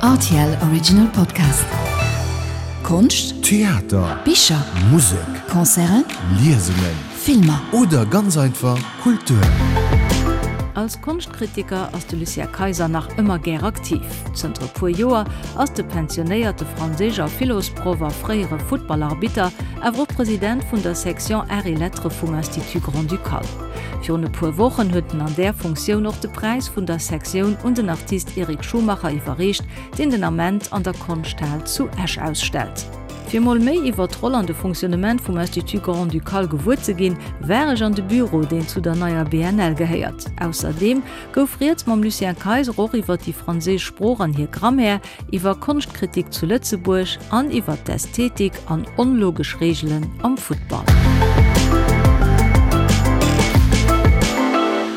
Rtl Original Podcast. Konscht, Theater, Bicher, Musek, Concerten, Liesungen, Filmer. Oder ganz einfach Kultur. Als Konschtkritiker ass de Lucien Kayser nach ëmmer gär aktiv. Zënter e puer Joer ass de pensionéierte Franséisch a Philosproff a fréiere Futtballarbitter awer och President vun der Section Arts et Lettres vum Institut Grand-Ducal. Virun e puer Wochen huet en an där Funktioun och de Präis vun der Sektioun un den Artist Eric Schumacher iwwerreecht, deen den Ament an der Konschthal zu Esch ausstellt. Fir mol méi iwwer d'Roll an de Fonctionnement vum Institut Grand-Ducal gewuer ze ginn, war ech an de Büro, deen zu der neier BNL gehéiert. Ausserdeem gouf rieds mam Lucien Kayser och iwwer déi franséisch Sprooch an hir Grammaire, iwwer Konschtkritik zu Lëtzebuerg an iwwer d'Ästhetik an onlogesch Reegelen am Futtball.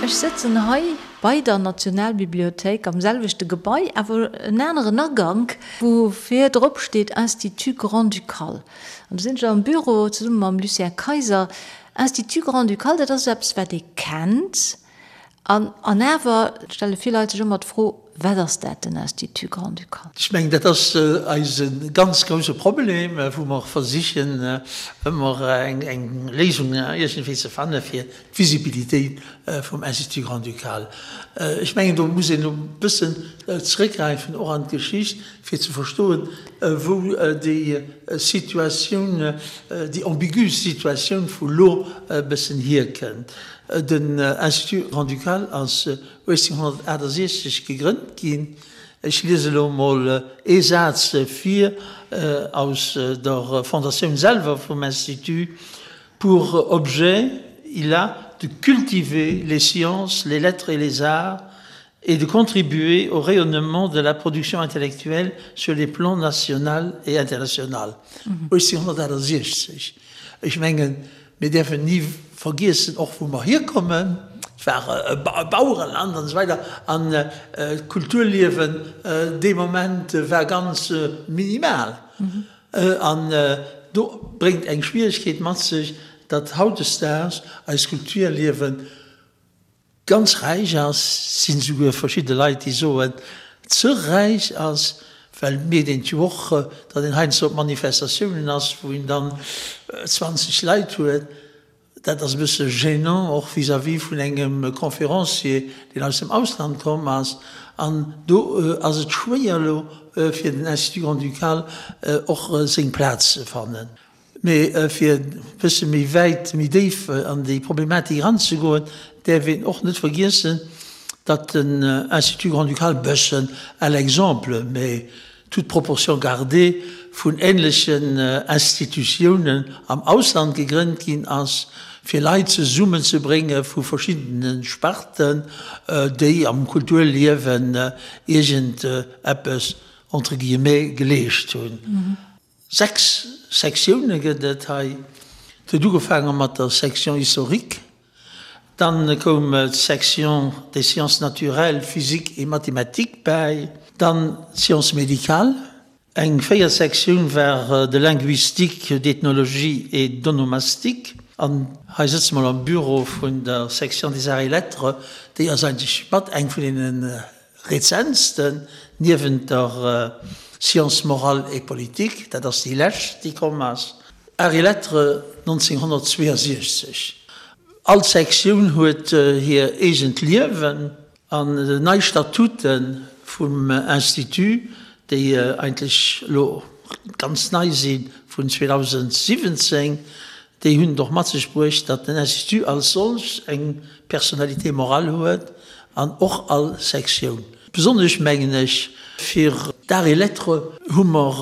Ech sëtzen hei bei der Nationalbibliothéik am selwechte Gebai, awer en aneren Agank, wou vir drop steet Institut Grand-Ducal. An do sinn ech am Büro zesumme mam Lucien Kayser. Institut Grand-Ducal, dat ass eppes, wat ee kennt. An an awer stelle vill Leit sech ëmmer d'Fro, Wat ass dat, den Institut Grand-Ducal? Ech mengen, dat ass eise ganz grouse Problem, wou mer versichen ëmmer eng Léisung iergendwéi ze fanne fir d'Visibilitéit vum Institut Grand-Ducal. Ech mengen, do muss een e bëssen zrëckgräifen och an d'Geschicht, fir ze verstoen, wou déi Situatioun, déi ambigu Situatioun vu lo e bëssen hierkënnt. Den Institut Grand-Ducal ass 1868 gegrënnt ginn. Ech liese elo emol ee Saz vir aus der Fondatioun selwer vum Institut, Pour objet, il a de cultiver les sciences, les lettres et les arts et de contribuer au rayonnement de la production intellectuelle sur les plans national et international. 1868. Ech mengen, Mir däerfen ni vergiessen, och wou mer hierkommen. Et war e Bauereland an esou weider an d'Kulturliewen dee Moment war ganz minimal. An do bréngt eng Schwieregkeet mat sech, datt hautdesdaags eist Kulturliewen ganz räich ass, sinn esouguer verschidde Leit déi soen, ze räich ass, well et mierkt een jo och, datt een heiansdo op Manifestatiounen ass, wou een dann 20 Leit huet. Dat ass e bësse gênant och vis-à-vis vun engem Conférencier, deen aus dem Ausland komm ass. An do ass et schwéier elo fir den Institut Grand-Ducal och seng Plaz ze fannen. Mee fir e bësse méi wäit, méi déif an déi Problematik eranzegoen, däerf een och net vergiessen, datt den Institut grand-ducal bëssen à l'exemple, mais toute proportion gardée, vun ähnlechen Institutiounen am Ausland gegrënnt ginn ass, fir Leit zesummenzebrénge vu verschiddene Sparten, déi am Kulturliewen iergend eppes, entre guillemets, geleescht hunn. 6 Sektioune gëtt et hei. Et huet ugefaange mat der Section historique, dann koum d'Section des sciences naturelles, physique et mathématiques bäi, dann d'Sciences médicales. Eng véiert Sektioun war de linguistique, d'ethnologie et d'onomastique. An hei sëtze mer am Büro vun der Section des arts et lettres, déi ass eigentlech mat eng vun deene Rezentsten, niewent der Sciences morales et politiques, dat ass déi lescht, déi komm ass, Arts et Lettres 1962. All Sektioun huet hir eegent Liewen an nei Statute vum Institut, déi eigentlech elo ganz nei si vun 2017, Déi hunn et och mat sech bruecht, datt den Institut als solch eng Personnalité morale huet an och all Sektioun. Besonnesch mengen ech, fir d'Arts et Lettres hu mer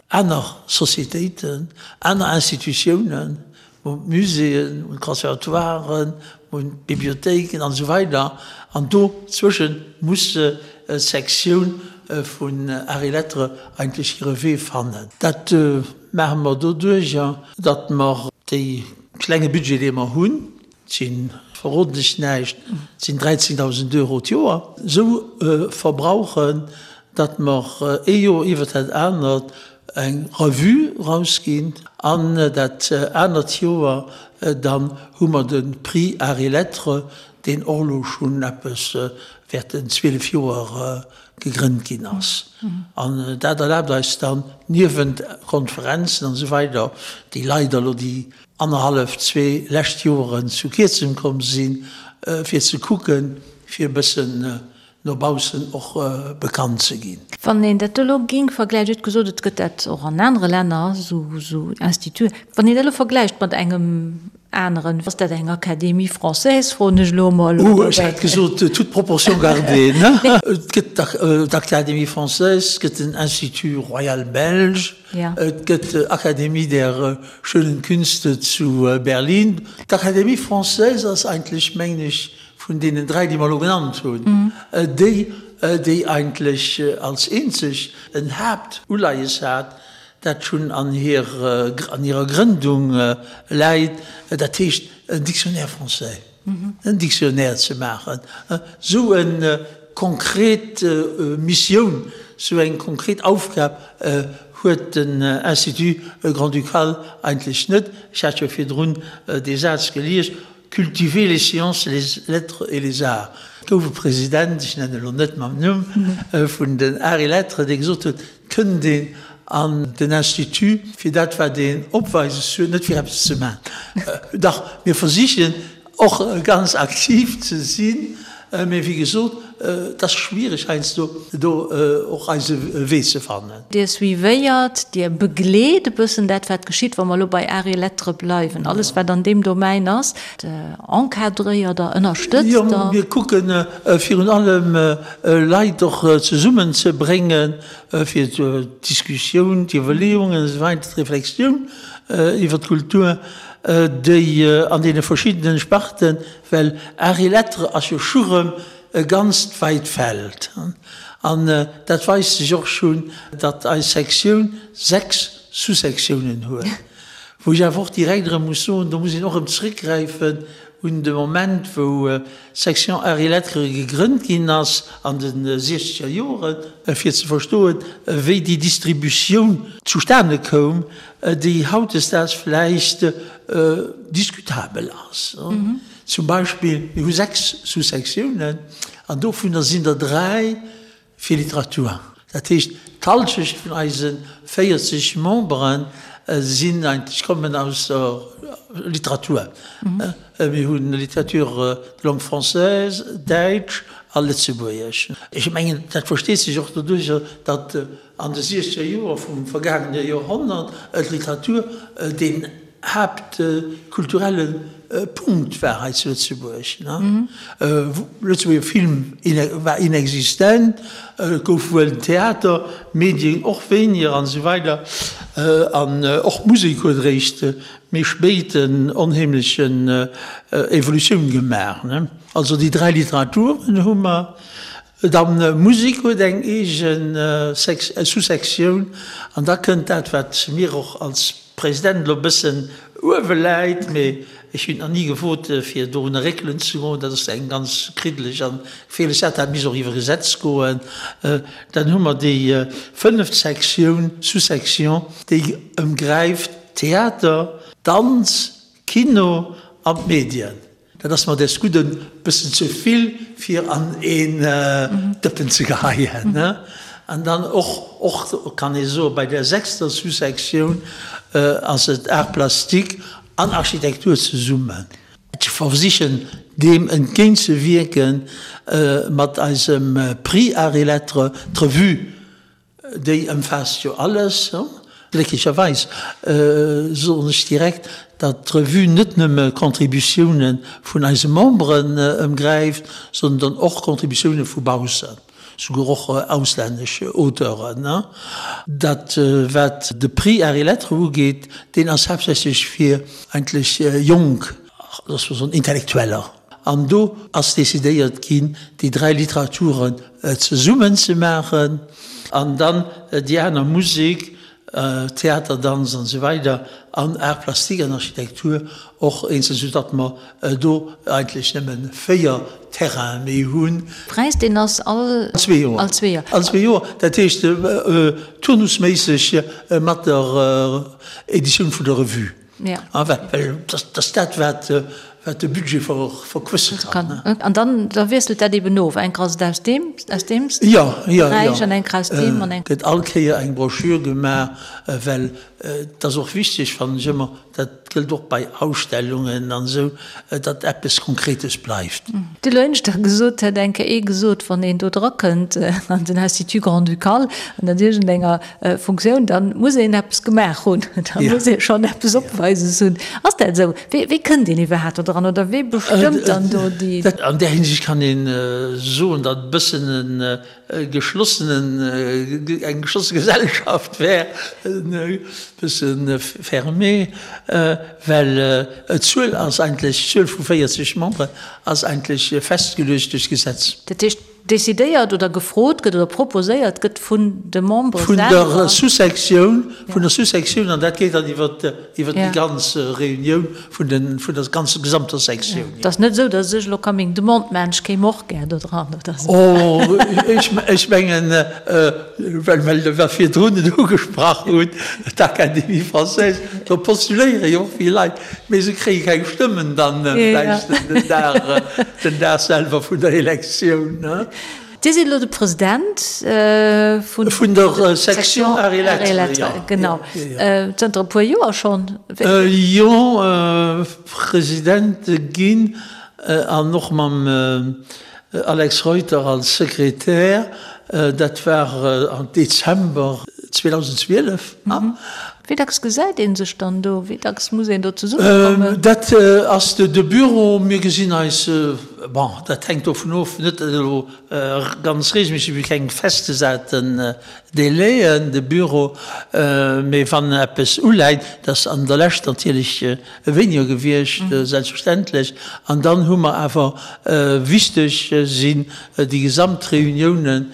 aner Sociétéiten, aner Institutiounen, mer hunn d'Muséeën, mer hunn d'Conservatoiren, mer hunn d'Bibliothéiken an esou weider an do zwësche muss d'Sektioun vun Arts et Lettres eigentlech hire Wee fannen. Dat maache mer doduerjer, datt mer dee klenge Budget, dee mer hunn, et si verroden ech näischt, et sinn 13.000 Euro d'Joer, esou verbrauchen, datt mer ee Joer iwwert dat anert eng Revue erausginn an dat anert Joer dann hu mer de Prix Arts et Lettres, deen och elo schonn eppes. während den 12 Joer gegrënnt ginn ass. An dat erlaabt eis dann, niewent Konferenzen an esou weider, déi leider elo déi annerhallef, zwee lescht Joren zu kierzem komm sinn, fir ze kucken, fir e bëssen no baussen och bekannt ze ginn. Wann een dat elo géing vergläichen, Dir hutt gesot, et gëtt dat och an anere Länner, esou Instituten, wann een dat elo vergläicht mat engem aneren, ass dat eng Académie française, froen ech elo emol? Oh, ech hätt gesot, toute proportion gardée, ne? Et gëtt d'Académie française, et gëtt den Institut royal belge, et gëtt d'Académie der schönen Künste zu Berlin. D'Académie française ass eigentlech, mengen ech, vun deenen dräi, déi mer elo genannt hunn, déi, déi eigentlech als eenzeg en Haaptuleies hat, dat schonn an hirer Grëndung läit, dat heescht en Dictionnaire français, en Dictionnaire ze maachen, esou e konkret Missioun, esou eng konkret Aufgab huet den Institut grand-ducal eigentlech net. Ech hat jo virdrun dee Saz gelies, Cultiver les sciences, les lettres et les arts. Et gouf e President, ech nennen elo net mam Numm, vun den Arts et Lettres, dee gesot huet, et kënnt een an den Institut fir dat wat een opweises huet, net fir eppes ze maachen. Dach, mir versichen och ganz aktiv ze sinn, mee wéi gesot, et ass schwiereg heiansdo do och eise Wee ze fannen. Dir suivéiert, Dir begleet e bëssen dat, wat geschitt, wa mer elo bei Arts et Lettres bleiwen, alles wat an deem Domaine ass, encadréiert Der, ënnerstëtzt Jo, Der? mir kucken virun allem Leit och zesummen ze bréngen, fir d'Diskussioun, d'Iwwerleeungen esou weider, d'Reflexioun iwwer d'Kultur, déi an deene verschiddenen Sparten, well Arts et Lettres ass jo scho rëm e ganzt weit Feld. An dat weist sech och schonn, datt eis Sektioun 6 Sous-Sektiounen huet. Wou ech awer och direkt erëm muss soen, do muss een och erëm zréckgräifen un de Moment, wou d'Section Arts et Lettres gegrënnt ginn ass an de siechzeger Joren, fir ze verstoen, wéi déi Distributioun zustane koum, déi hautdesdaags vläicht diskutabel ass. Zum Beispill, mir hu 6 Sous-Sektiounen an dovunner sinn der 3 fir Literatur. Dat heescht, d'Halschecht vun eise 40 Membere sinn eigentlech, kommen aus der Literatur. Mir hu Littérature de langue française, Däitsch a Lëtzebuergesch. Ech mengen, dat versteet sech och doduercher, datt an de siechzeger Joer vum vergaangene Joerhonnert d'Literatur deen haaptkulturelle Punkt war hei zu Lëtzebuerg. Lëtzebuerger Film war inexistent, et gouf wuel den Theater, Medien och wéiniger an esou weider. An och d'Musek huet eréischt méi spéit en onheemlechen Evolutioun gemaach. Also déi dräi Literaturen hu mer. Dann Musek huet eng eegen Sous-Sektioun an da kënnt dat, wat mir och als President elo e bëssen uewe läit, mee ech hunn et nach ni gewot, fir dorunner réckelen ze goen, dat ass eng ganz kriddeleg an geféierlech Saach, dat misst och iwwer Gesetz goen. Dann hu mer déi fënneft Sektioun, Sous-Section, déi ëmgräift Theater, Danz, Kino an d'Medien. Dat ass mer des Gudden bëssen ze vill fir an een Dëppen ze geheien. An dann och, och kann ee soen, bei der sechster Sous-Sektioun ass et Arts plastiques an Architektur zesummen. Ech versichen deem entgéintzewierken mat eisem Prix Arts et Lettres, d'Revue Déi ëmfaasst jo alles. Glécklecherweis soen ech direkt, datt d'Revue net nëmme Contributioune vun eise Memberen ëmgräift, sondern och Contributioune vu baussen, souguer och auslännesch Auteuren. Dat wat de Prix Arts et Lettres ugeet, deen ass haaptsächlech fir eigentlech jonk, loosse mer soen Intellektueller. An do ass decidéiert ginn, déi dräi Literaturen zesummen ze maachen an dann déi aner Musek, Theater, Danz an esou weider an Arts plastiques an Architektur och eenzel, soudatt mer do eigentlech nëmme 4 Terrainen méi hunn. Präis, deen ass all zwee Joer. All zwee Joer. All zwee Joer, dat heescht turnusméisseg mat der Editioun vun der Revue. Ja. Well dat ass dat, wat. wat de Budget verquësse kann. An dann da wiesselt dat eben of, eng ass et aus deem, aus deem Beräich an eng aus deem an eng. Gëtt all Kéier eng Broschür gemaach, well et ass och wichteg, fannen ech ëmmer, dat gëllt och bei Ausstellungen an esou, datt eppes Konkretes bleift. De Lënschter gesot hätt eng Kéier ee gesot, wann een do drakënnt an den Institut Grand-Ducal an an iergendenger Funktioun, dann muss een eppes gemaach hunn, da muss ee schonn eppes opweises hunn. Ass dat esou? Wéi, wéi kënnt een iwwerhaapt do dran oder wee bestëmmt dann do déi? An där Hinsicht kann ee soen, datt e bëssen e geschlossenen, eng geschlosse Gesellschaft wär, e bësse fermé, well d'Zuel ass eigentlech, d'Zuel vu 40 Memberen ass eigentlech festgeluecht duerch d'Gesetz. Dat heescht, Decidéiert oder gefrot gëtt oder proposéiert gëtt vun de Membere selwer. Vun der Sous-Sektioun, vun der Sous-Sektioun, an dat geet dann iwwer iwwer déi ganz Reunioun vun den, vun der ganzer gesamter Sektioun. Et ass net esou, datt ech elo ka meng Demande maachen, ech kéim och gär do dran oder esou. Oh, ech, ech mengen, well well mer virdrun et ugesprach hunn, d'Académie française, do postuléiere jo och vill Leit. Mee se kréie keng Stëmmen dann vläicht den Dag, den Dag selwer vun der Elektioun. Dir sidd elo de President vun. Vun der Section Arts et Lettres, jo. Genau. Zënter e puer Joer schonn. Jo, President ginn an och mam Alex Reuter als Sekretär. Dat war am Dezember 2012. Wéi dacks gesäit ee sech dann do? Wéi dacks muss een do zesummekommen? Dat ass de Büro. Mir gesinn eis, bon, dat hänkt dovun of, net elo ganz reegelméisseg, mir hu keng festgesaten Délaiën, de Büro, mee wann eppes uläit, dat ass an der Lescht natierlech wéiniger gewiescht, selbstverständlech, an dann hu mer awer, wichteg sinn déi gesamt Reuniounen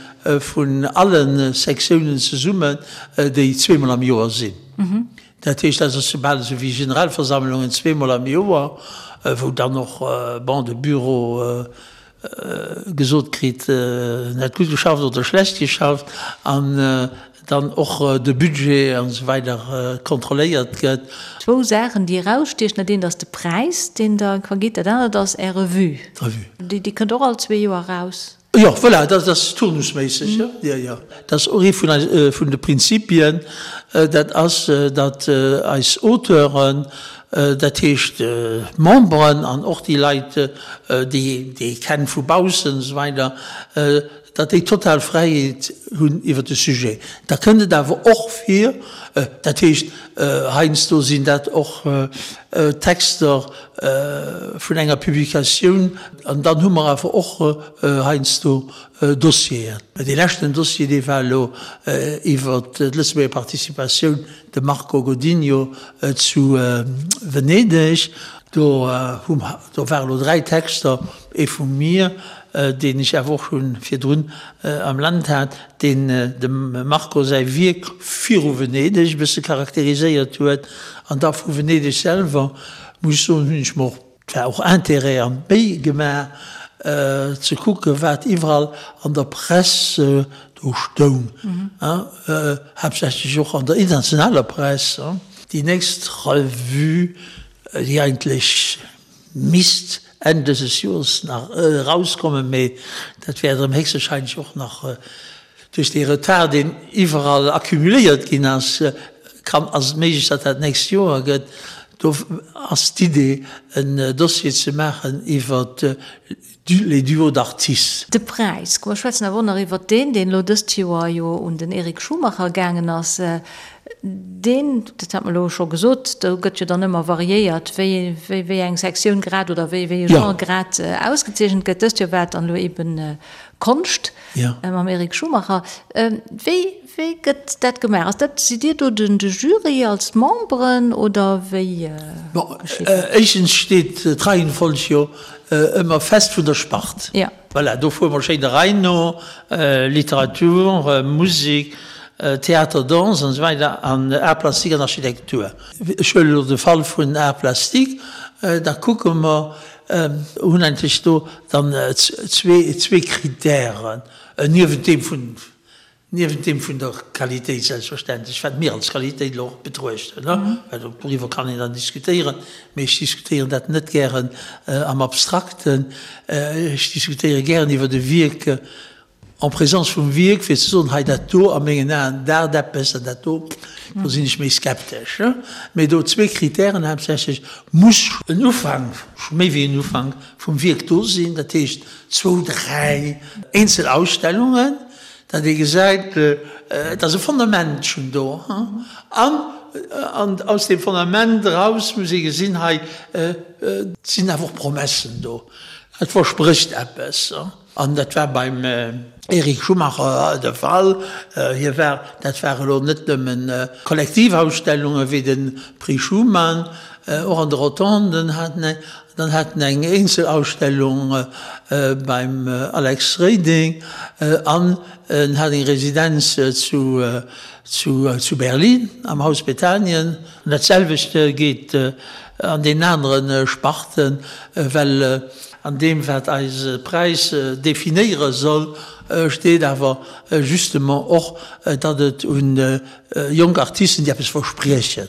vun alle Sektiounen zesummen, déi zweemol am Joer sinn. Dat heescht, dat ass bal esou wéi Generalversammlungen zweemol am Joer, wou dann och, bon, de Büro gesot kritt, en hätt gutt geschafft oder schlecht geschafft, an dann och de Budget an esou weider kontrolléiert gëtt. Zwou Saachen, déi erausstiechen, Dat eent ass de Präis, deen Der vergitt, dat anert ass Är Revue. D'Revue. Déi kënnt och all zwee Joer eraus. Jo, voilà, dat ass turnusméisseg, jo, jo, jo. Dat ass och ee vun eis, vun de Prinzipien, dat ass, datt eis Auteuren, dat heescht d'Memberen an och déi Leit, déi déi ee kennt vu baussen an esou weider, datt déi total Fräiheet hunn iwwer de Sujet. Da kënnt et awer och vir, dat heescht, heiansdo sinn dat och Texter vun enger Publikatioun, An dann hu mer awer och heiansdo Dossieren. Dee leschten Dossier, dee war elo iwwert d'Lëtzebuerger Participatioun, de Marco Godinho zu Venedeg. Do hu mer, do ware elo 3 Texter, ee vu mir, deen ech awer och scho virdrun am Land hat, deen dem Marco säi Wierk viru Venedeg e bësse charakteriséiert huet. An da vu Venedeg selwer, muss ech soen, hunn ech mer och Et war och Intérêt an d'Méi gemaach ze kucken, wat iwwerall an der Press do stoung, haaptsächlech och an der internationaler Press. Déi nächst Revue, déi eigentlech misst Enn dëses Joers nach erauskommen, mee dat wäert erëm héchstwahrscheinlech och nach Duerch dee Retard, deen iwwerall accumuléiert ginn ass, kann, ass et méiglech, datt dat d'nächst Joer gëtt. Do ass d'Idee, en Dossier ze maachen iwwer les duos d'artistes. De Präis, komm mer schwätzen awer och nach iwwert deen, deen elo dëst Joer jo un den Eric Schumacher gaangen ass. Deen, dat hat mer elo scho gesot, do gëtt jo dann ëmmer variéiert, wéi, wéi eng Sektioun grad oder wéi, wéi e Genre grad ausgezeechent gëtt. Dëst Joer war et dann elo eben Konscht. Mam Eric Schumacher. Wéi, wéi gëtt dat gemaach? Ass dat, sidd Dir do den, de Jury als Memberen oder wéi Bon, geschitt dat? éischtens steet d'Reihenfolg jo ëmmer fest vun der Spart. Ja. Voilà, do fuere mer schéin der Rei no, Literatur, Musek, Theater, Danse an esou weider an Arts plastiques an Architektur. Ech huelen elo de Fall vun Arts plastiques, da kucke mer, Hunn eigentlech do dann zwee Kritären, niewent deem vun. Niewent deem vun der Qualitéit selbstverständlech, wat mir als Qualitéit elo och betruechten, well doriwwer kann een dann diskutéieren, mee ech diskutéieren dat net gären am Abstrakten, ech diskutéiere gären iwwert e Wierk en présence vum Wierk, fir ze soen, hei dat do a mengen Aen daacht eppes an dat do, do sinn ech méi skeptesch. Mee do zwee Kritären haaptsächlech, muss en Ufank, méi wéi en Ufank vum Wierk do sinn, dat heescht zwou, dräi eenzel Ausstellungen, datt ee gesäit, et ass e Fondament schonn do an an aus deem Fondament eraus muss ee gesinn, hei sinn awer och Promessen do, et versprécht eppes. An dat war beim Eric Schumacher de Fall. Hie war, dat war elo net nëmmen Kollektivausstellunge wéi de Prix Schuman, och an de Rotonden hat en eng, dann hat en eng Eenzelausstellung beim Alex Reding an en hat eng Residenz zu zu Berlin am Haus Bethanien. An dat selwecht geet an deenen anere Sparten, well an deem wat eise Präis definéiere soll, steet awer justement och, datt et un jonk Artisten, déi eppes verspriechen,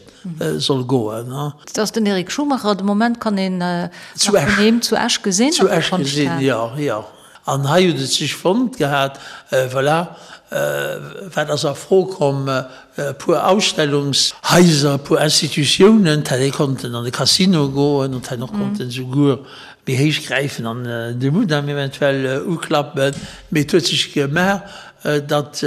soll goen. Dat ass den Eric Schumacher. De Moment kann een nach vun him zu Esch gesinn. Zu Esch gesinn, jo, jo. An hei huet et sech fonnt gehat, voilà, wat ass a Fro komm, e puer Ausstellungshaiser, e puer Institutiounen, d'hätt ee konnten an de Casino goen, und hätt och konnten souguer méi héich gräifen an de Mudam eventuell uklappen. Mee et huet sech gemaach, datt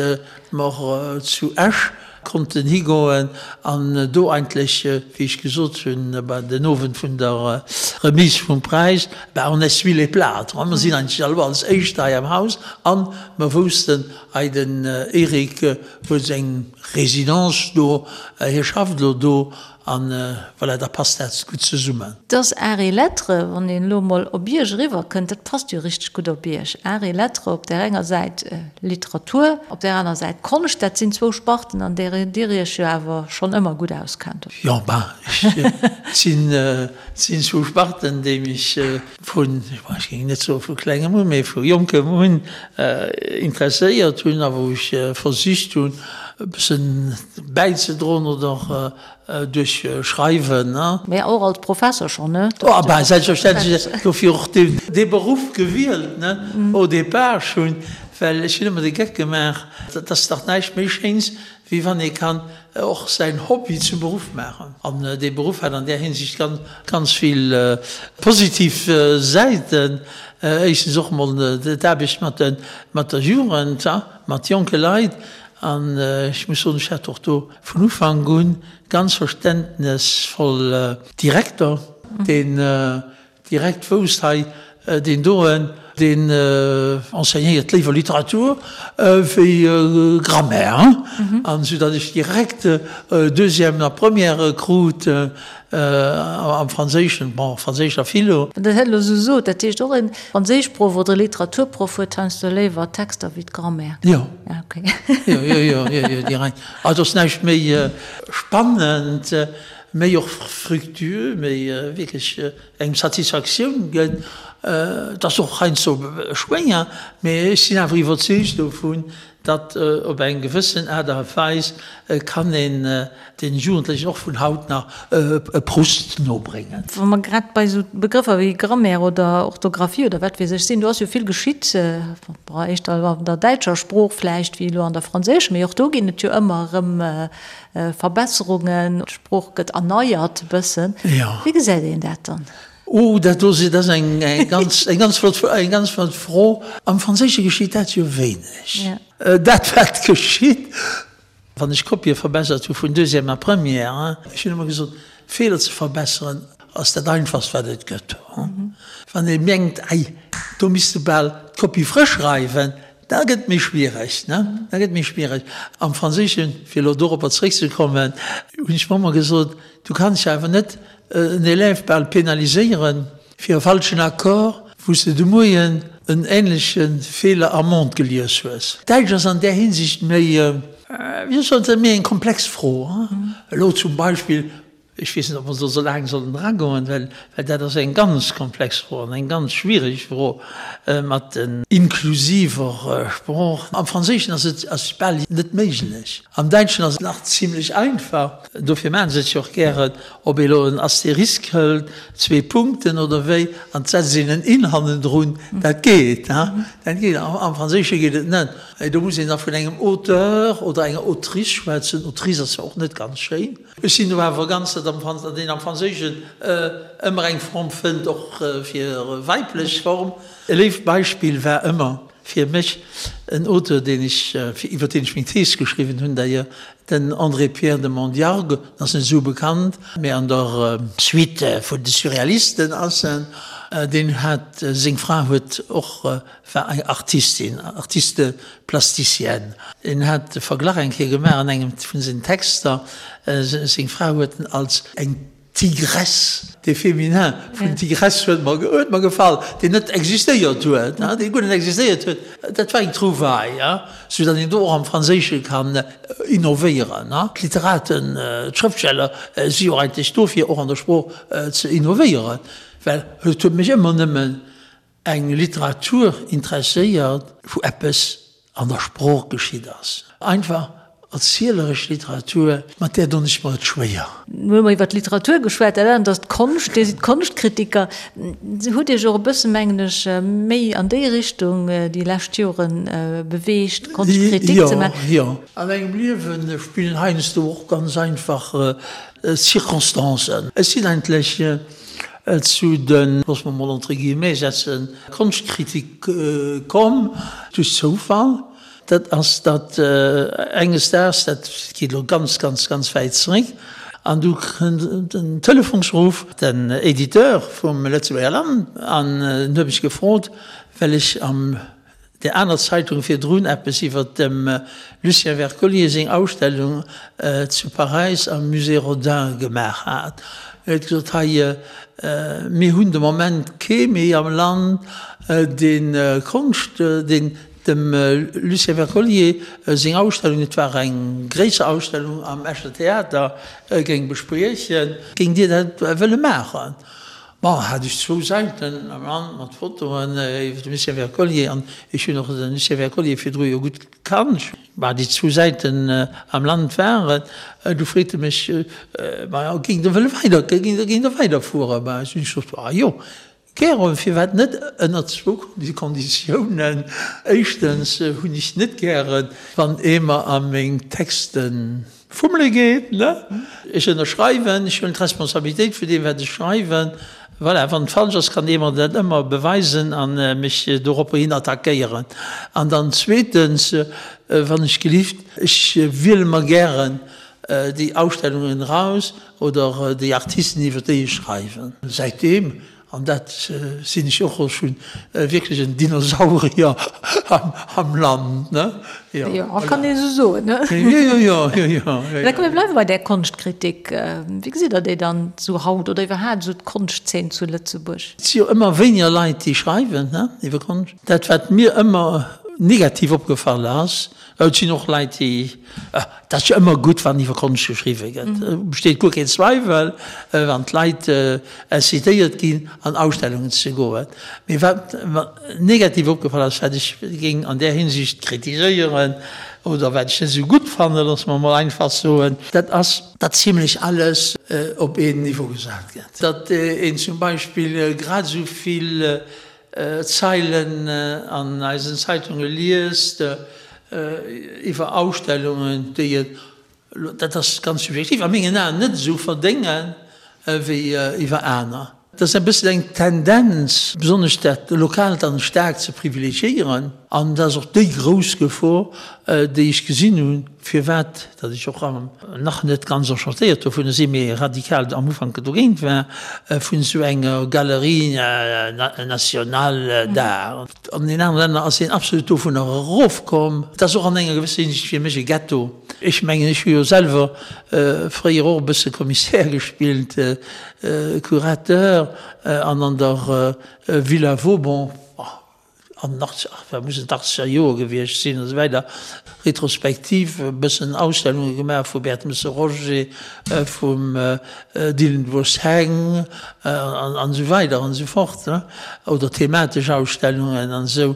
mer zu Esch konnten higoen an do eigentlech, wéi ech gesot hunn bei den Owend vun der Remise vum Präis, ben on essuie les plâtres, mer sinn eigentlech elo als Éischt hei am Haus an mer woussten, hei den Eric huet seng Résidence do, hie schafft elo do An voilà, da passt dat gutt zesummen. Dass Arts et Lettres, wann een elo emol op Iech eriwwerkënnt, dat passt jo richteg gutt op Iech. Arts et Lettres, op där enger Säit Literatur, op där aner Säit Konscht, dat sinn zwou Sparten, an där Dir Iech jo awer schonn ëmmer gutt auskennt. Jo, ben, et sinn zwou Sparten, déi mech vun, ech géing net soe vu klengem un, mee vu jonkem un interesséiert hunn a wou ech versicht hunn, e bëssen bäizedroen oder duerch Schreiwen. Mä och als Professer schonn, ne? Oh, bah, selbstverständlech, dofir och dee Beruff gewielt, ne, au départ schonn, well ech hunn ëmmer de Geck gemaach, et ass dach näischt méi Schéins, wéi wann ee kann och säin Hobby zum Beruff maachen. An dee Beruff hat an där Hinsicht ganz, ganz vill positiv Säiten. Éischtens och emol d'Aarbecht mat de, mat der Jugend, mat jonke Leit. An ech muss soen, ech hat och do vun Ufank un ganz verständnesvoll Direkter, deen direkt wousst, hei deen doen, deen enseignéiert léiwer Literatur wéi Grammaire, an esou datt ech direkt Deuxième a Première krut am Franséischen, bon, Franséisch a Philo. Wann Der dat elo esou sot, dat heescht och e Franséischproff oder e Literaturproff huet heiansdo léiwer Texter wéi d'Grammaire? Jo. Ah, okay. Jo, jo, jo, jo, jo, direkt. Also ass näischt méi spannend, méi och fructueux, méi wierklech engem Satisfaktioun gëtt. Et ass och heiansdo schwéier, mee ech sinn awer iwwerzeegt dovun, datt op eng gewëssen Aart a Weis kann een den Jugendlechen och vun haut nach e Proust nobréngen. Wa mer grad bei esou Begrëffer wéi Grammaire oder Orthographie oder wat weess ech sinn, do ass jo vill geschitt, éischter an der däitscher Sprooch vläicht wéi elo an der franséischer, mee och do ginn et jo ëmmer erëm Verbesserungen, d'Sprooch gëtt erneiert e bëssen. Wéi gesäit een dat dann? Oh, dat do dat ass eng ganz, eng ganz flott, eng ganz flott Fro. Am Franséische geschitt dat jo wéineg. Dat wat geschitt, wann ech Kopië verbessert hu vun Deuxième a Première, ech hunn ëmmer gesot, Feeler ze verbesseren ass dat einfachst wat et gëtt. Wann ee mengt, ei, do misst de bal d'Kopie frësch schreiwen, Da gëtt et méi schwiereg, ne? Da gëtt et méi schwiereg. Am Franséischen, fir elo doropper zréckzekommen, hunn ech mer ëmmer gesot, du kanns jo awer net en Élève bal penaliséieren fir e falschen Accord, wou s de de Moien en ähnleche Feeler am Monde gelies hues. Däitsch ass an där Hinsicht méi, wéi soll ech soen, méi eng komplex Fro. Elo zum Beispill. Ech weess net, ob mer do esou laang sollen eragoen, well dat ass eng ganz komplex Fro an eng ganz schwierig Fro mat den. Inklusiver Sprooch. Am Franséischen ass et ass bal net méiglech. Am Däitschen ass et nach zimlech einfach. Dofir maache se et jo och gären, ob ee elo en Asterisk hëlt, zwee Punkten oder wéi, an et setzt een en in hannendrun, dat geet. Dat geet. Am Franséische geet et net. Do muss een da vun engem Auteur oder enger Autrice schwätzen. Autrice ass zwar och net ganz schéin. Ech sinn do awer ganz, datt am Franz, datt een am Franséischen ëmmer eng Form fënnt, och fir weiblech Form. E léift Beispill war ëmmer fir mech en Auteur, deen ech, iwwer deen ech meng Thees geschriwwen hunn d'ailleurs, den André-Pierre de Mondiargues, en ass net esou bekannt, mä an der Suite vun de Surrealisten ass en, deen hat, seng Fra huet och war eng Artistin, Artiste plasticienne. En hat de Verglach eng Kéier gemaach an engem vun sengen Texter, seng Fra huet en als eng Tigresse, de Féminin vun Tigresse huet mer, huet mer gefall, deen net existéiert huet, dee guer net existéiert huet. Dat war eng Trouvaille, sou datt een do och am Franséische kann innovéieren. D'Literaten, d'Schrëftsteller si jo eigentlech do fir och an der Sprooch ze innovéieren, well et huet mech ëmmer nëmmen Eng Literatur interesséiert, wou eppes an der Sprooch geschitt ass. Einfach erzieleresch Literatur, mat där donn ech mer et schwéier. Elo hu mer iwwer d'Literatur geschwat, dat anert ass d'Konscht. Dir sidd Konschtkritiker. Dir hutt Iech och e bësse, mengen ech, méi an déi Richtung déi lescht Jore beweegt, Konschtkritik ze maachen. Jo, jo. An engem Liewe spillen heiansdo och ganz einfach Circonstancen. Ech sinn eigentlech Zu de, loosse mer mol entre guillemets setzen, Konschtkritik komm duerch Zoufall. Dat ass, datt enges Daags, dat geet elo ganz, ganz, ganz wäit zeréck, an du kënnt en Telefonsruff, den Editeur vum Lëtzebuerger Land, an en huet mech gefrot, well ech am där aner Zeitung virdrun eppes iwwer dem Lucien Wercollier seng Ausstellung zu Paräis am Musée Rodin gemaach hat. En huet gesot, Hei, mir hunn de Moment kee méi am Land, dee Konscht, deen dem Lucien Wercollier seng Ausstellung, et war eng gréisser Ausstellung am Escher Theater, géing bespriechen. Géingt Dir dat wëlle maachen? Bon, hat ech zwou Säiten am Land mat Fotoen iwwer de Lucien Wercollier an ech hunn och de Lucien Wercollier virdru jo gutt kannt. Bah, déi zwou Säiten am Land waren, du freet e mech, Maja, géing Der wëlle weider, géing Der, géing Der weiderfueren? Bah, ech hunn gesot, Ah jo, gären, firwat net, ënner zwou Konditiounen. Éischtens hunn ech net gären, wann ee mer a meng Texten Fummele geet, ne? Ech ënnerschreiwen, ech huelen d'Responsabilitéit vun deem, wat ech schreiwen. Voilà, wann et falsch ass, kann ee mer dat ëmmer beweisen a mech doropper hin attackéieren. An dann zweetens, wann ech gelift, ech wiele mer gären déi Ausstellungen eraus oder déi Artisten, iwwer déi ech schreiwen. Säitdeem An dat sinn ech och schonn, wierklech en Dinosaurier am Land, ne? Jo, jo, kann een esou soen, ne? Jo, jo, jo, jo, jo. Da komm mir bleiwe bei där Konschtkritik. Wéi gesitt Der déi dann esou haut oder iwwerhaapt esou d'Konschtzeen zu Lëtzebuerg? Et si jo ëmmer wéiniger Leit, déi schreiwen, ne, iwwer Konscht. Dat, wat mir ëmmer negativ opgefall ass, Et sinn och Leit, déi, et ass jo ëmmer gutt, wann iwwer Konscht geschriwwe gëtt, besteet guer keen Zweiwel, wann d'Leit incitéiert ginn, an Ausstellungen ze goen. Mee wat mer negativ opgefall ass, wat ech géing an där Hinsicht kritiséieren oder wat ech net esou gutt fannen, loosse mer emol einfach soen, dat ass, datt zimlech alles op een Niveau gesat gëtt, datt een zum Beispill grad esou vill Zeilen an eisen Zeitunge liest iwwer Ausstellungen, déi et, dat ass ganz subjektiv, a mengen Aen net esou verdéngen wéi iwwer aner. Et ass e bëssen eng Tendenz, besonnesch dat Lokaalt dann staark ze privilegiéieren. An dat ass och déi grouss Gefor, déi ech gesinn hunn, firwat datt ech och nach net ganz enchantéiert dovunner sinn, mee radikal am Ufank dogéint war, vun esou enger Galerie nationale d'art. An den anere Länner ass een absolut dovunner erofkomm. Et ass och an enger gewësser Hinsicht fir mech e Ghetto. Ech mengen, ech hu jo selwer fréier och e bësse Commissaire gespillt, Curateur, an an der Villa Vauban. An den 80, ach, wat mussen d'Achtzeger Joer gewiescht sinn an esou weider, Retrospektiv e bëssen Ausstellunge gemaach vu Bertmesse Roger, vum Dillenburgs Heng an esou weider an esou fort, ne, oder thematesch Ausstellungen an esou.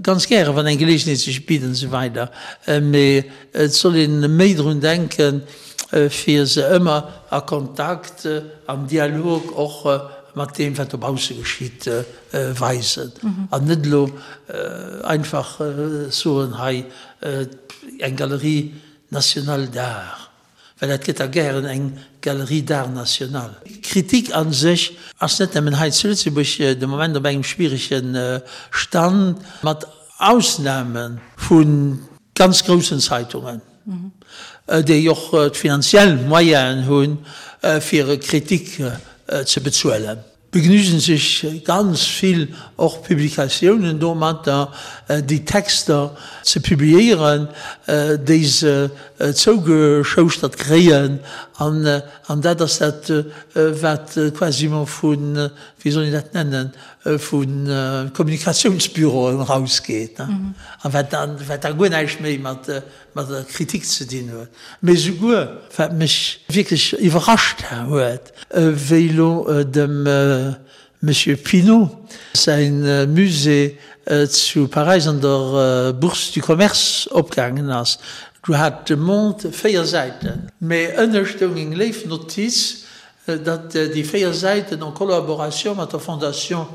Ganz gäre wann eng Geleegenheet sech bitt an esou weider. Mee et soll een méi drun denken, fir se ëmmer a Kontakt, am Dialog och mat deem wat dobausse geschitt, weisen an net elo einfach soen, hei eng Galerie nationale d'art, well dat gëtt da gären eng Galerie d'art national. Kritik a sech ass net nëmmen hei zu Lëtzebuerg de Moment op engem schwierege Stand, mat Ausname vu ganz groussen Zeitungen, déi och d'finanziell Moyenen hunn, fir Kritik ze bezuelen. Begnügen sech ganz vill och Publikatiounen domatter, déi Texter ze publiéieren, déi se zougeschouschtert kréien. An dat ass dat, wat quasiment vu, wéi soll een dat nennen, vu Kommunikatiounsbüroen erausgeet a wat da guer näischt méi mat mat der Kritik ze dinn huet, mee souguer, wat mech wierklech iwwerrascht huet, wéi elo dem Monsieur Pinault säi Musée zu Paräis an der Bourse du Commerce opgaangen ass, do hat de Monde 4 Säiten, mee ënne stoung eng léif Notiz, datt déi 4 Säiten en collaboration mat der Fondation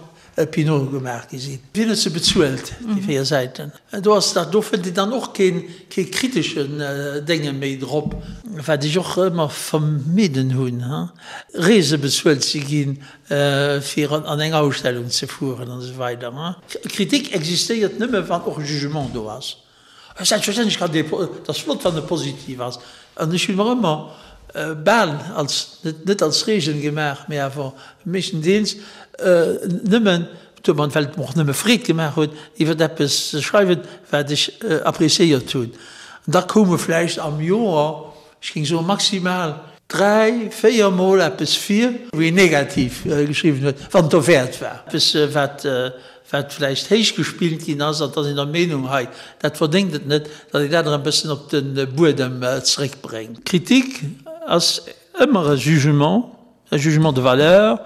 Pinault gemaach gi sinn. Wien huet se bezuelt, déi 4 Säiten? Do ass dat, do fënnt een dann och keen, kee kriteschen Dénge méi drop. Wat ech och ëmmer vermidden hunn, Reese bezuelt ze ginn, fir an eng Ausstellung ze fueren an esou weider. Kritik existéiert nëmme wann och e Jugement do ass. Selbstverständlech kann dee, et ass flott, wann e positiv ass. An ech hunn mer ëmmer bal als, net als Reegel gemaach, mee awer meeschtendeels nëmmen, domat, well et mer och nëmme Freed gemaach huet, iwwer eppes ze schreiwen, wat ech appréciéiert hunn. An da koume vläicht am Joer, ech géing soen maximal dräi, véier Mol eppes vir, wou een negativ geschriwwen huet, wann et derwäert war, eppes, wat wat vläicht héich gespillt ginn ass, an et ass een der Meenung, hei, dat verdéngt et net, datt een dat erëm e bëssen op de Buedem zeréckbréngt. Kritik ass ëmmer e Jugement, e Jugement de valeur,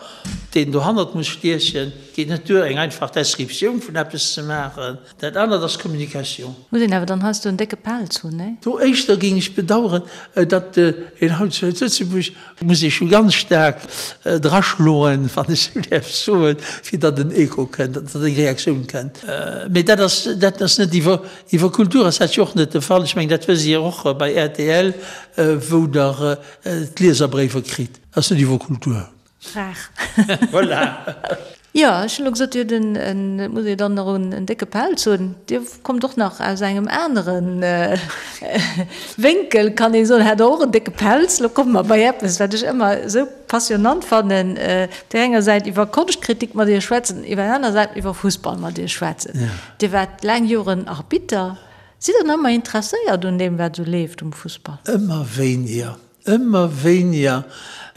deen dohannert muss stiechen. Et geet net duer, eng einfach Descriptioun vun eppes ze maachen. Dat anert ass Communication. Muss een awer dann heiansdo en décke Pelz hunn, nee? Do éischter géing ech bedauern, datt een haut zu Lëtzebuerg Muss ee scho ganz staark draschloen, wann ech esou däerf soen, fir datt en Echo kënnt, datt eng Reaktioun kënnt. Mee dat ass, dat ass net iwwer, iwwer Kultur ass dat jo och net de Fall. Ech mengen, dat wësst Dir och bei rtl, wou Der d'Lieserbréiwer kritt. Dat ass net iwwer Kultur. Rar. Voilà. Jo, ech hunn elo gesot, Dir hutt en, en, et muss ee dann nach en, en décke Pelz hunn. Dir kommt och nach aus engem anere Wénkel, kann ee soen, hat Der och en décke Pelz. Elo komme mer bei eppes, wat ech ëmmer esou passionnant fannen, op där enger Säit iwwer Konschtkritik mat Iech schwätzen, iwwer der aner Säit iwwer Fussball mat Iech schwätzen. Dir waart laang Joren Arbitter. Sidd Der nach ëmmer interesséiert un deem, wat esou leeft um Fussball? Ëmmer wéiniger. Ëmmer wéiniger.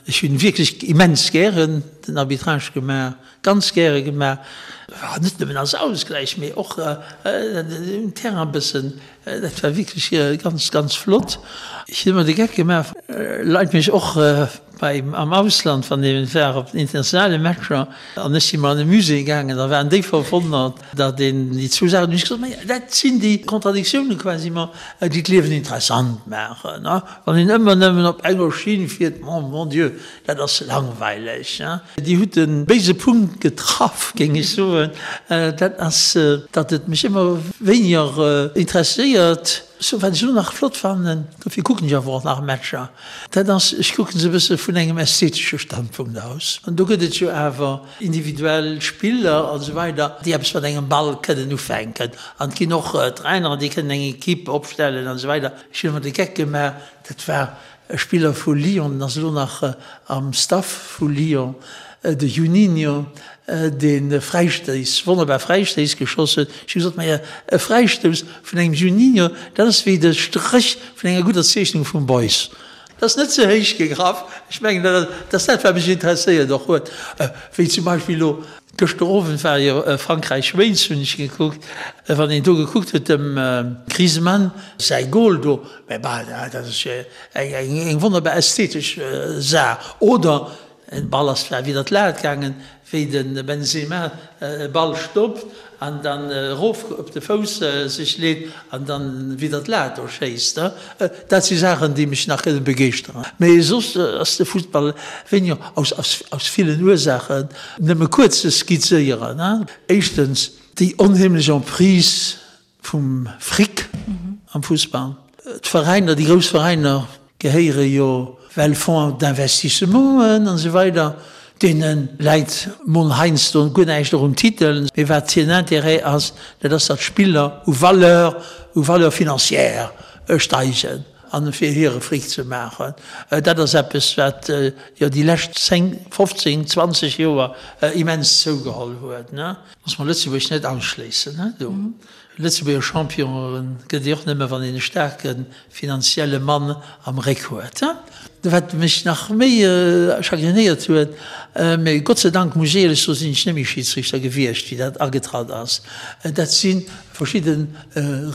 Ech hunn wierklech immens gären den Arbitrage gemaach, ganz gäre gemaach. Net nëmmen als Ausgläich, mee och um Terrain e bëssen. Dat war wierklech ganz, ganz flott. Ech hunn ëmmer de Geck gemaach, Leit mech och bei am Ausland, wann ee war op den internationale Matcher an ech si mol an e Musée gaangen, da waren déi verwonnert, datt een déi zwou Saachen, hunn ech gesot, ma dat sinn déi Kontradiktiounen quasiment, déi d'Liewen interessant maachen. Wann een ëmmer nëmmen op enger Schinn fiert, mon bon Dieu, dat ass langweileg. Dir hutt de béise Punkt getraff, géing ech soen. Dat ass, datt et mech ëmmer wéiniger interesséiert. Sou, wat ech elo nach flott fannen, dofir kucken ech awer och nach Matcher, dat ass, ech kucke se e bësse vun engem ästhetesche Standpunkt aus. An do gëtt et jo awer individuell Spiller an esou weider, déi eppes mat engem Ball kënnen ufänken. An et ginn och Traineren, déi kënnen eng Equipe opstellen an esou weider. Ech hunn ëmmer de Geck gemaach, dat war e Spiller vu Lyon, den ass elo nach am Staff vu Lyon, de Juninho, dee Fräistéiss, wonnerbar Fräistéiss geschoss huet. Ech hu gesot, Maja, e Fräistouss vun engem Juninho, dat ass wéi de Stréch vun enger gudder Zeechnung vum Beuys. Dat ass net ze héich gegraff. Ech mengen, dat ass dat, wat mech interesséiert och huet. Wéi zum Beispill elo gëschter Owend war jo Frankräich-Wales, hunn ech gekuckt. Wann een do gekuckt huet, dem Griezmann säi Gol do, mä bah, dat ass jo eng wonnerbar ästhetesch Saach. Oder Den Ball ass zwar widder d'Lat gaangen, wéi de Benzema e Ball stoppt an dann erof op de Fouss sech leet an dann widder d'Lat do schéisst. Dat si Saachen, déi mech nach kënne begeeschteren. Mee soss ass de Fussball wéiniger, aus villen Ursaachen, nëmme kuerz ze skizzéieren. Éischtens déi onheemlech Emprise Vum Fric am Fussball. D'Veräiner, déi grouss Veräiner gehéiere jo well Fonds d'investissementen an esou weider, deene läit mol heiansdo guer näischt och um Titel, mee wat hiren Intérêt ass, dat ass, datt d'Spiller u Valeur, u Valeur financière steigen an fir hire Fric ze maachen. Dat ass eppes, wat jo déi lescht 10, 15, 20 Joer immens zougeholl huet. Muss mer Lëtzebuerg net ausschléissen, he do. Lëtzebuerger Champion gëtt ee och nëmme wann een e staarke finanzielle Mann am Réck huet, he. Wat mech nach méi chagrinéiert huet, mee Gott sei Dank muss ech éierlech soen, sinn ech net méi Schiedsrichter gewiescht wéi dat agetratt ass, dat si verschidde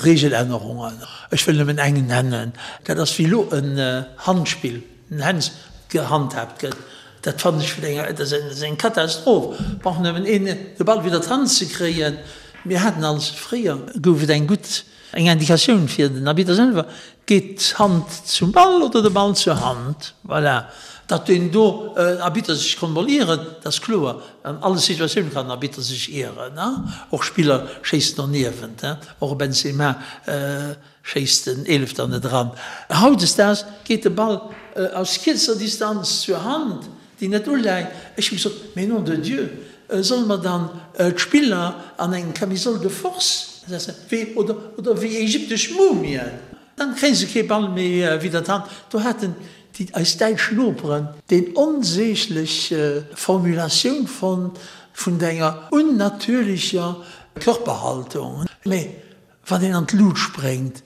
Regelännerungen. Ech wëll nëmmen eng nennen, dat ass wéi elo en Handspill, en Hands gehandhaabt gëtt. Dat fannen ech vun enger, dat ass eng Katastroph. Brauch nëmmen een de Ball widder d'Hand ze kréien. Mir haten als, fréier gouf et eng gutt, eng Indikatioun fir den Arbitter selwer, geet d'Hand zum Ball oder de Ball zur Hand. Voilà. Datt deen do Arbitter sech konnt mol ieren, dat ass kloer. An alle Situatioune kann den Arbitter sech ieren. Och Spiller schéissen doniewent, och e Benzema. Schéisst den Eelefter net eran. Hautdesdaags geet de Ball aus kierzer Distanz zur Hand, déi net uläit. Ech hu gesot, Mais nom de Dieu, solle mer dann d'Spiller an eng Camisole de force setzen, wéi, oder, oder wéi ägyptesch Mumien? Dann kréie se kee Ball méi widder d'Hand. Do haten déi, eis däitsch Noperen, déi onsäglech Formulatioun fonnt vun enger unnatürlecher Körperhaltung. Mee Wann een an d'Lut spréngt,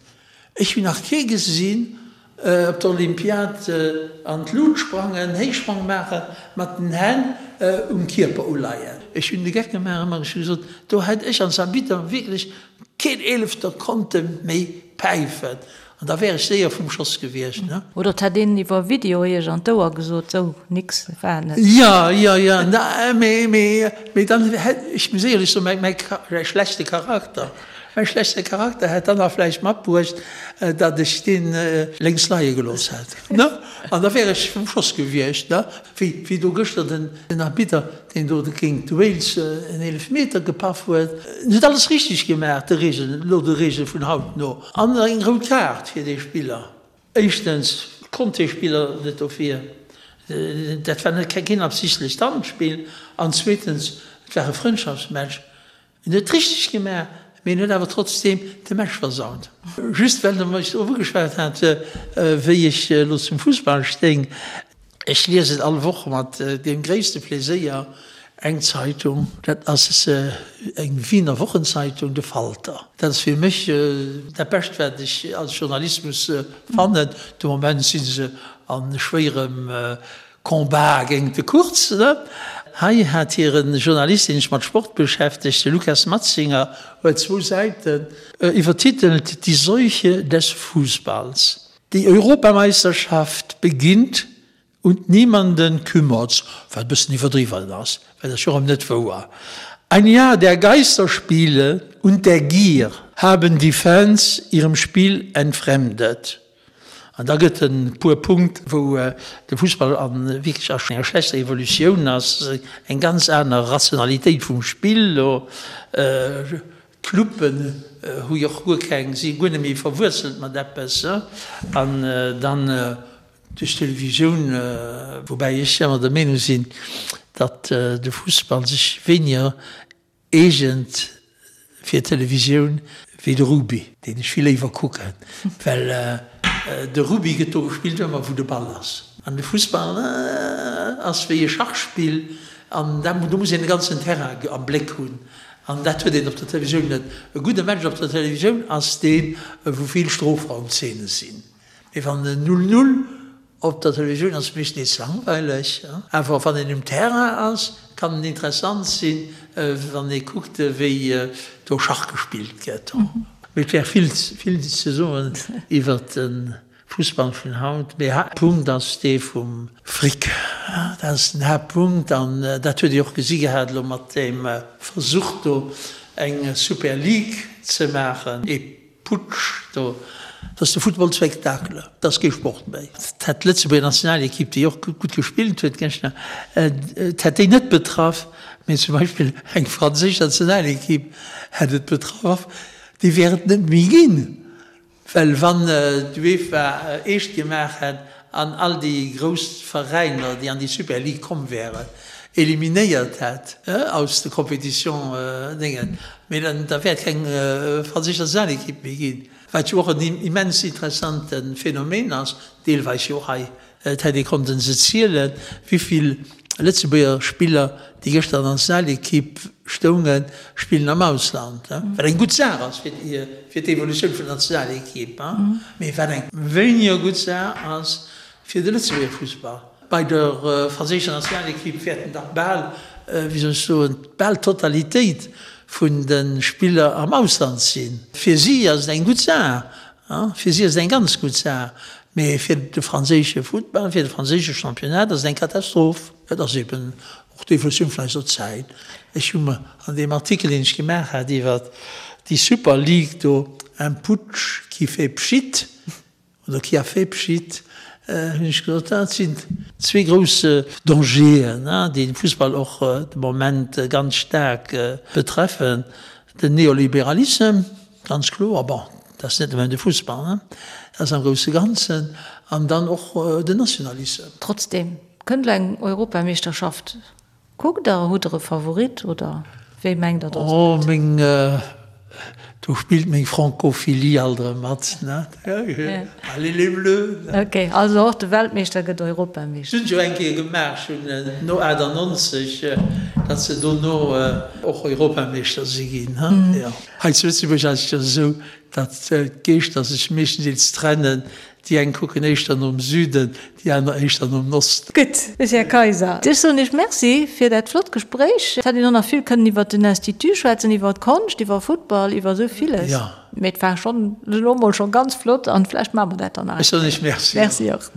ech hunn nach kee gesinn op der Olympiad an d'Lut sprangen, Héichsprong maachen, mat den Hänn um Kierper uleien. Ech hunn de Geck gemaach ëmmer, ech hu gesot, do hätt ech als Arbitter wierklech keen Eelefter konnte méi päifen an da wär ech séier vum Schoss gewiescht, ne. Oder et hätt een iwwer Video iech an d'Ouer gesot, sou, nix, war net. Jo, jo, jo, mee, mee, mee dann hätt, ech muss éierlech soen, mäi, mäi schlechte Charakter, Mäi schlechte Charakter hätt dann nach vläicht matbruecht, datt ech deen lénks leie gelooss hätt, ne? An da wär ech vum Schoss gewiescht, ne? Wéi, wéi do gëschter den, den Arbitter, deen do géint Wales en Eelefmeter gepaff huet. En huet alles richteg gemaach, de Reegelen, elo de Reegele vun haut no. An eng rout Kaart fir dee Spiller. Éischtens konnt dee Spiller net dofir, dat war net keen absichtlecht Handspill. An zweetens, et war e Frëndschaftsmatch. En huet richteg gemaach, mee en huet awer trotzdeem de Match versaut. Just well Der mech drop ugeschwat hat, wéi ech elo zum Fussball stéing, Ech liesen all Woch mat deem gréisste Pleséier eng Zeitung, dat ass eng Wiener Wochenzeitung, de Falter. Dat ass fir mech dat Bescht, wat ech als Journalismus fannen. De Moment si se a schwéierem Combat géint de Kurz, ne? Hei hat hire Journalist, deen sech mat Sport beschäftegt, de Lukas Matzinger, huet zwou Säiten iwwertitelt Die Seuche des Fußballs. Die Europameisterschaft beginnt und niemanden kümmert's, wat e bëssen iwwerdriwwen ass, well dat ass jo erëm net wouer. Ein Jahr der Geisterspiele und der Gier haben die Fans ihrem Spiel entfremdet. An da gëtt en puer Punkt, wou de Fussball a wierklech a enger schlechter Evolutioun ass, eng ganz aner Rationalitéit vum Spill elo. D'Clubben hu jo och guer keng, si guer net méi verwuerzelt mat eppes. An dann duerch d'Televisioun, woubäi ech ëmmer der Meenung sinn, datt de Fussball sech wéiniger Eegent fir d'Televisioun wéi de Rugby, deen ech vill léiwer kucken, well de Rugby gëtt do gespillt ëmmer wou de Ball ass. An de Fussball ass wéi e Schachspill an do muss een de ganzen Terrain am Bléck hunn an dat huet een op der Televisioun net. E gudde Match op der Televisioun ass deen, wou vill Strofraumzeene sinn. Mee wann en Null-Null. Op der Televisioun ass et meeschtens nees langweileg, awer wann een um Terrain ass, kann en interessant sinn, wann ee kuckt, wéi do Schach gespillt gëtt. Mee et wär vill, vill ze soen iwwer de Fussball vun haut. Mee Haaptpunkt ass dee vum Fric. Dat ass den Haaptpunkt an dat huet Dir och gesi gehat elo mat deem Versuch do eng Super League ze maachen. Ee Putsch do. Dat ass de Football Spektakel, dat ass kee Sport méi. Et hätt d'Lëtzebuerger Nationalekipp, déi och gutt gespillt huet gëschter, et hätt déi net betraff, mee zum Beispill eng franséisch Nationalekipp hätt et betraff, déi wär et net méi ginn. Well wann d'UEFA eescht gemaach hätt an all déi grouss Veräiner, déi an déi Super League komm wären, eliminéiert hätt aus de Compétition Déngen, mee dann da wär et keng franséisch Nationalequipe méi ginn, wat jo och en immens interessante Phänomen ass, deelweis jo och hei. Et hätt ee konnten se zielen, wéivill Lëtzebuerger Spiller, déi gëschter an der Nationalekipp stoungen, spillen am Ausland. Wat eng gutt Saach ass fir d'Evolutioun vun der Nationalekipp, mee wat eng wéiniger gutt Saach ass fir de Lëtzebuerger Fussball. Bei der franséischer Nationalekipp wäerten dach bal, wéi soll ech soen, bal d'Totalitéit vun de Spiller am Ausland sinn. Fir si ass et eng gutt Saach, Fir si ass et eng ganz gutt Saach, mee fir de franséische Futtball, fir de franséische Championnat ass et eng Katastroph. Et ass eben och d'Evolutioun vun eiser Zäit. Ech hu mer an deem Artikel, deen ech gemaach hat iwwer déi Super League do, un putsch qui fait pschitt oder qui a fait pschitt, hunn ech gesot, dat sinn zwee grouss Dangeren, déi de Fussball och de Moment ganz staark betreffen, den Neoliberalissem, Ganz kloer, bon, dat ass net nëmmen de Fussball, ne, dat ass am grousse Ganzen, an dann och den Nationalissem. Trotzdem, kënnt elo eng Europameeschterschaft. Kuckt Der, hutt Der e Favorit oder wéi mengt Der, datt et Oh, meng, do spillt meng Francophilie alt erëm mat, ne. Allez les Bleus, ne. Ok, also och de Weltmeeschter gëtt Europameeschter. Hunn se jo eng Kéier gemaach, schonn no 98, datt se dono och Europameeschter si ginn, jo. Hei zu Lëtzebuerg ass et jo esou, datt d'Geeschter sech meeschtendeels trennen, déi eng kucken éischter nom Süden, déi aner éischter nom Osten. Gutt, Här Kayser, ech soen Iech Merci fir dat flott Gespréich. Et hätt een och nach vill kënnen iwwert den Institut schwätzen, iwwer d'Konscht, iwwer Futtball, iwwer esou villes. Mee et war schonn elo mol scho ganz flott an vläicht maache mer dat dann nach eng Kéier. Ech soen Iech Merci. Merci och.